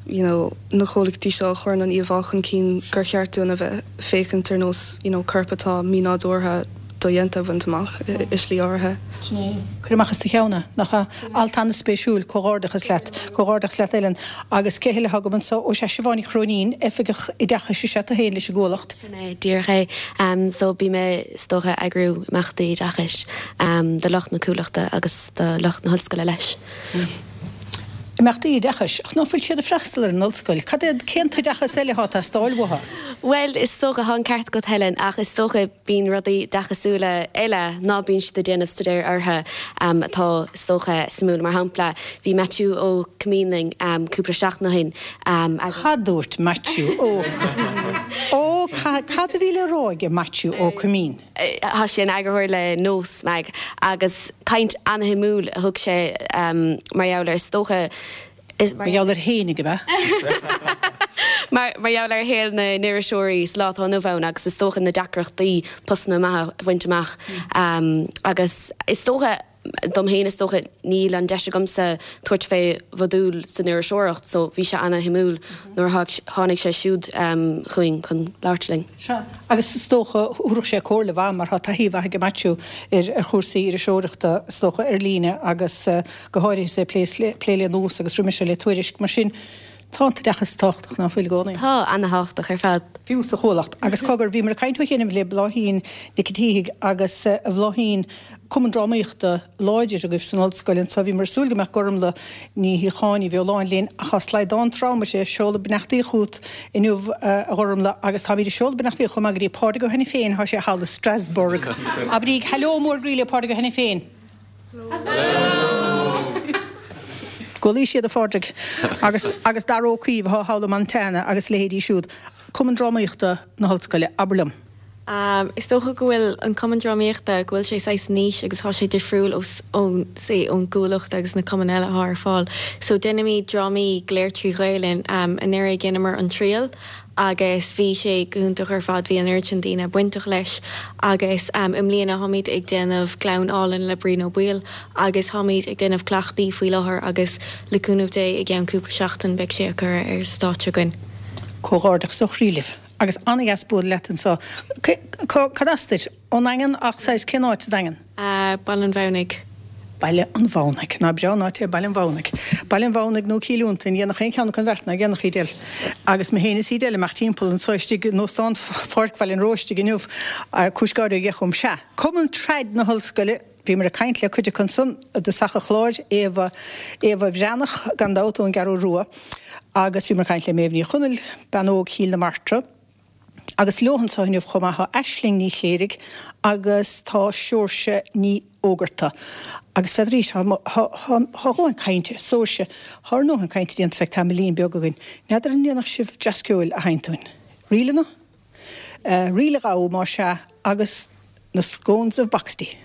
you know na comhlachtaí seo a chuireann an íomhá chun cinn gur cheart dúinn a bheith féachaint ar nós you know corp atá mínádúrtha dodhéanta a bhaint amach i slí áirithe. Sin é. Cuir amach as do cheann é, nach ea? Alt an-spéisiúil, comhghairdeachas leat. Comhghairdeachas leat Ellen. Agus cé heile atá agam anseo? Ó sea, Siobhán Ní Chróinín, Oifigeach Oideachais is ea tú féin leis an gCuallacht. Sin é díreach é. So bím is dócha ag eagrú imeachtaí oideachais do lucht na Cuallachta agus do lucht na hollscoile leis. Imeachtaí oideachais? Ach ná fuil siad ag freastal ar an ollscoil? Cad é, cén t-oideachas eile atá ag teastáil uathu? Bhuel, is dócha, tá an ceart agat Helen, ach is dócha bíonn rudaí oideachasúla eile ná bíonn siad ag déanamh staidéir orthu atá, is dócha, suimiúil. Mar shampla, bhí Maitiú Ó Coimín linn cúpla seachtain ó shin agus. Cad dúirt Maitiú Ó Ó cad a bhí le rá aige Maitiú Ó Coimín? Tá sé ina eagarthóir le Nós Mag agus caint ana-shuimiúil a thug sé mar gheall ar, is dócha, Mar gheall air fhéinig, ab ea? Mar gheall ar shaol na n-iriseoirí sa lá atá inniu ann agus is dócha na deacrachtaí postanna maithe a bhaint amach agus is dócha, Dom fhéin is dócha níl an deis agamsa tabhairt fé mhodúl san iriseoireacht so bhí sé ana-shuimiúil nuair a tháinig sé siúd chugainn chun labhairt linn. Sea, agus is dócha thabharfadh sé comhairle mhaith mar tá taithí mhaith aige Maitiú ar chúrsaí iriseoireachta is dócha ar líne agus go háirithe is é ag plé le Nós agus roimis le Tuairisc. Mar sin tá an t-oideachas tábhachtach ná fuil i gcónaí? Tá, ana-thábhachtach ar fad. Fiú sa Chuallacht. Agus cogar, bhíomar ag caint ó chianaibh le Bláithín Nic an tSíthigh agus a Bhláithín, cumann drámaíochta láidir agaibh san ollscoil anseo. Bhíomar ag súil go mbeadh Gormlaith Ní Shíocháin, Ní Bheoláin linn ach tá slaghdán trom uirthi. Seoladh beannachtaí chugat inniu a Ghormlaith agus táimid ag seoladh beannachtaí chomh maith go dtí Pádraig Ó hAiniféin, tá sé thall i Strasbourg. Abraíg hello mór groí le Pádraig Ó hAiniféin. Go luí siad a Phádraig agus agus Dara Ó Caoimh atá thall i Montana agus a leithéidí siúd. Cumann Drámaíochta na hOllscoile, abair liom. Is dócha go bhfuil an Cumann Drámaíochta, go bhfuil sé saghas niche agus tá sé difriúil ó, ón, say, ón gCuallacht agus na cumainn eile atá ar fáil. So déanaimid drámaí go léir trí Ghaelainn. Anuraidh dheineamar An Triail agus bhí sé go hiontach ar fad, bhí an oiread sin daoine bainteach leis agus i mbliana táimid ag déanamh Gleann Álainn le Brian Ó Baoill agus táimid ag déanamh cleachtaí faoi láthair agus le cúnamh Dé i gceann cúpla seachtain beidh sé á cur ar stáitse againn. Comhghairdeachas ó chroí libh agus an-dheas bualadh leat anseo. Cad as duit? Ón nDaingean ach saghas cén áit sa Daingean? Baile an Mhamhnaigh. Baile an Mhamhnaigh. Nach breá an áit é Baile an Mhamhnaigh. Baile an Mhamhnaigh nó Cill Fhionntain, dhéanfadh aon cheann acu an bheart, nach ndéanfadh, Edel? Agus mé féin is Edel ag imeacht timpeall anso istigh in Óstán Pháirc Bhaile an Róistigh inniu, cúis gáire a gheith chugam. Sea, Cumann Trad na hOllscoile, bhíomar ag caint le cuid acu ansan i dtosach an chláir, Éabha, Éabha Bhreathnach, gan dabht, ón gCeathrú Rua, agus bhíomar ag caint le Méabh Ní Chonaill, bean óg Chill na Martra, Agus leo anseo inniu chomh maith tá Aisling Ní Chléirigh agus tá Seoirse Ní Fhógarta. Agus n'fheadar, tá a dhóthain cainte, Seoirse, tá ár ndóthain cainte déanta feadh tamaillín beag againn. N'fheadar an ndéanfadh sibh dreas ceoil a sheinnt dúinn? Ríleanna? Ríl a ghabhadh, más ea, agus na Scones of Boxty.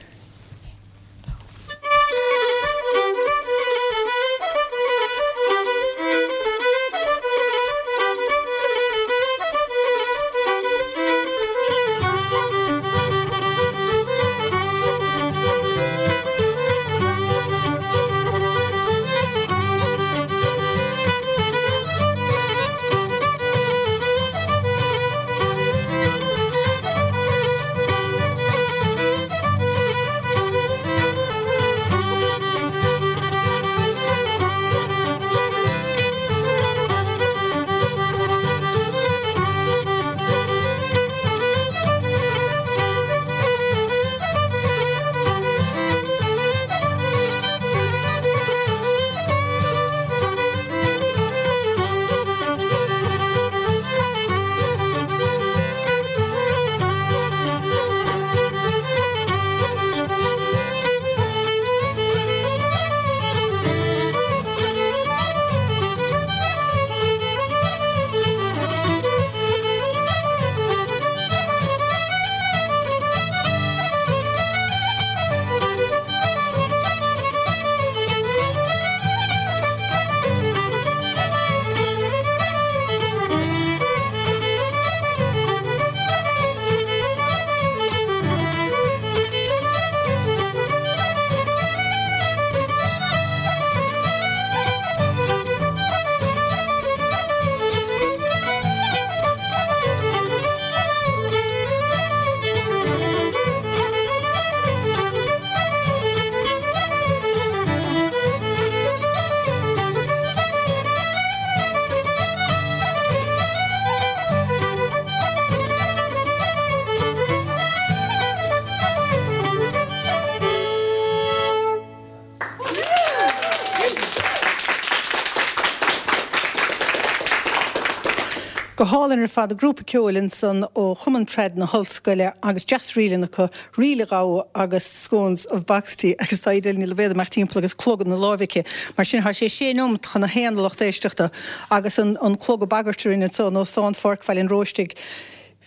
Go hálainn ar fad, grúpa ceoil ansan ó Chumann Trad na hOllscoile agus deas ríleanna acu, Ríl a Ghabhadh agus Scones of Boxty agus tá Edel Ní Loibhéad ag imeacht timpeall agus clog ina láimh aici. Mar sin, tá sé sé neomat chun a haon a lucht éisteachta agus an an clog ag bagairt orainn anso in Óstán Pháirc Bhaile an Róistigh.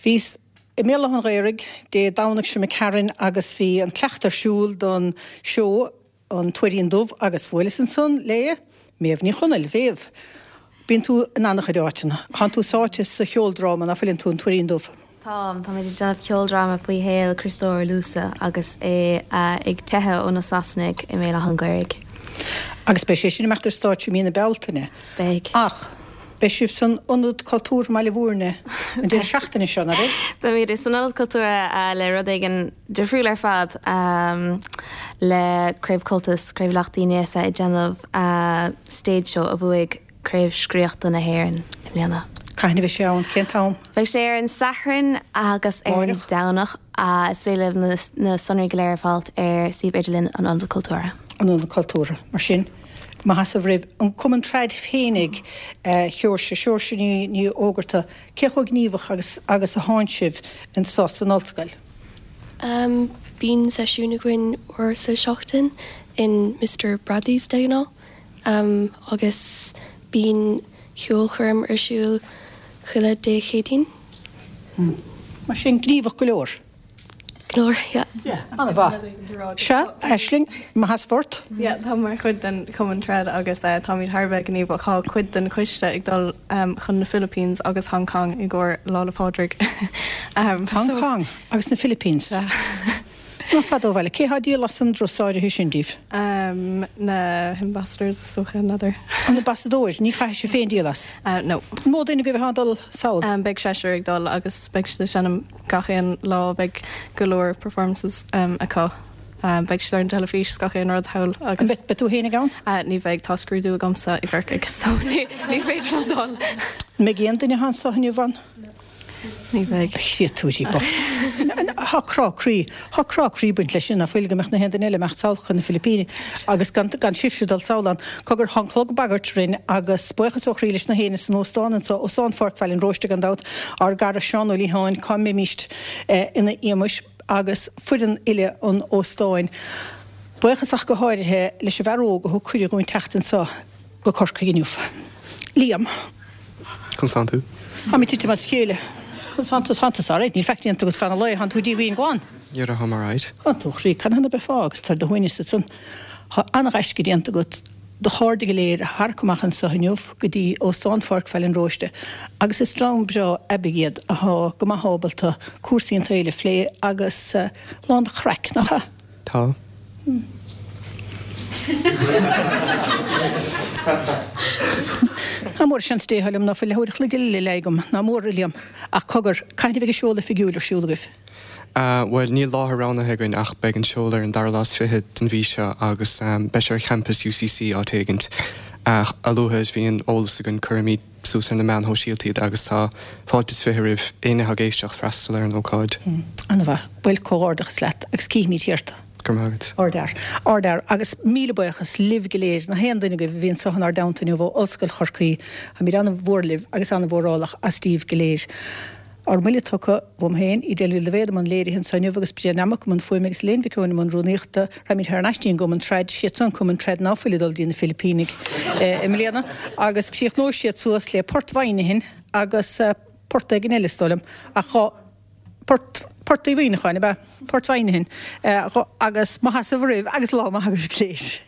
Bhíos i mBéal Átha an Ghaorthaidh Dé Domhnaigh seo imigh tharainn agus bhí an cleachtadh ar siúl don seó An Tuairín Dubh agus bhuaileas ansan le Méabh Ní Chonaill. Mhéabh, bíonn tú in an-chuid áiteanna. Tánn tú sáite sa cheoldráma, ná fuileann tú, An Tuairín Dubh? Táim. Táimid ag déanamh ceoldráma faoi shaol Chriostóir Lúsa agus é ag teitheadh ó na Sasanaigh i mBéal Átha an Ghaorthaidh. Agus beidh sé sin ag imeacht ar stáitse i mí na Bealtaine. Beidh. Ach beidh sibh san Ionad Cultúrtha i mBaile Bhúirne an deireadh seachtaine seo, ná beidh? Beimid san Ionad Cultúrtha le rud éigin difriúil ar fad le Craobh Comhaltas, Craobh Leacht Uí Naofa ag déanamh stage show a bhuaigh Craobh Scríochta na hÉireann i mbliana. Cathain a bheidh sé ann? Cén t-am? Beidh sé ar an Satharn agus ar an Domhnach. Is féidir libh na sonraí go léir a fháilt ar suíomh idirlín an Ionad Cultúrtha. An Ionad Cultúrtha. Mar sin, maith as roimh an Cumann Trad féinig, a Sheoirse, Seoirse Ní Fhógarta, cé chomh gníomhach agus agus a thánn sibh anso san ollscoil? Bíonn seisiún againn uair sa seachtain in Mister Bradley's de ghnáth agus bíonn ceolchoirm ar siúl chuile Dé Céadaoin. Mar sin, gníomhach go leor. Go leor, yeah. Yeah, an-mhaith. Sea, Aisling, mo sheasamh ort. Yeah, táim mar chuid den Chumann Trad agus táimid thar a bheith gníomhach. Tá cuid den choiste ag dul chun na Philippines agus Hong Kong i gcomhair Lá 'le Pádraig. Hong Kong agus na Philippines? Sea. Ná fada ó bhaile. Cé thá ag díol as an dturas áirithe sin díbh? Na hambassadors is dócha, n'fheadar. An ambasadóir? Ní chaithfidh sibh féin díol as? No. An mó duine agaibh athá ag dul sall? Beidh seisear ag dul agus beidh siad ag seinm gach aon lá, beidh go leor performances acu. Beidh siad ar an teilifís is gach aon rud thall agus. An mbeidh tú féin ag ann? Ní bheidh, tá scrúdú agamsa i gCorcaigh so ní féidir liom dul. An mbeidh aon duine athá anso inniu ann? Ní bheidh. A chréatúirí bocht. Thá crá croí, thá crá croí ag baint leis sin, ná fuil, go mbeadh na haon duine eile ag imeacht sall chun na Filipíní agus gan, gan sibhse dul sall ann. Cogar, thá an clog ag bagairt orainn agus buíochas ó chroí leis na héinne san óstán anso, Óstán Pháirc Bhaile an Róiste gan dabht, ár gcara Seán Ó Liatháin, cá mbeimíst ina éamais, agus foireann uile an óstáin. Buíochas ach go háirithe leis an bhfear óg a thug cuireadh dhúinn teacht anso. go Corcaigh inniu. Liam. Conas tánn tú? Táim ag titim as a chéile. Conas tánn tú? Tánn tusa alright, níl faic déanta agat feadh an lae, tánn tú díomhaoin glan. Yeah, táim alright. Tánn tú, a chroí, cathain a bheifeá agus tú ar do shuaimhneas ansan? Tá an-ghaisce déanta agat do chairde go léir a tharrac amach anso inniu go dtí Óstán Pháirc Bhaile an Róiste agus is dream breá aibidh iad athá go maith ábalta cúrsaí an tsaoil a phlé agus lán de chraic, nach ea? Tá. Ná mór seans Dé a thoil liom ná fuil leathuair a chloig eile le leá agam, ná mór, a Liam. Ach cogar, cathain a bheidh an seoladh oifigiúil ar siúl agaibh? Bhuel, níl láthair roghnaithe againn ach beidh an seoladh ar an dara lá is fichead den mhí seo agus beidh sé ar champas UCC áit éigint. A luaithe is bhíonn eolas againn cuirfimid suas ar na meáin shóisialta iad agus tá fáilte is 20 roimh éinne atá ag éisteacht freastal ar an ócáid. An-mhaith. Bhuel, comhghairdeachas leat agus cífimid thiar tú. Go raibh maith agat. Ardfhear. Ardfhear. Agus míle buíochas libh go léir, na haon duine agaibh a bhí anso inár dteannta inniu ó Ollscoil Chorcaí. Táimid an-mhór libh agus an-mhórálach as díbh go léir. Ár mbuille tugtha uaim féin, Edel Ní Loibhéad i mbun léirithe anso inniu agus Bridget Nammock i mbun fuaime agus Elaine Mhic Eoin i mbun rúnaíochta. Raghaimid thar n-ais dtí an gCumann Trad, siad san an Cumann Trad ná fuil ag dul dtí na Filipínigh i mbliana agus críochnóidh siad suas le Port Mhuineacháin agus port éigin eile is dóigh liom ach dhá Port Port Uí Mhuineacháin ab ea? Port Mhuineacháin agus mo sheasamh oraibh agus lá maith agaibh go léir.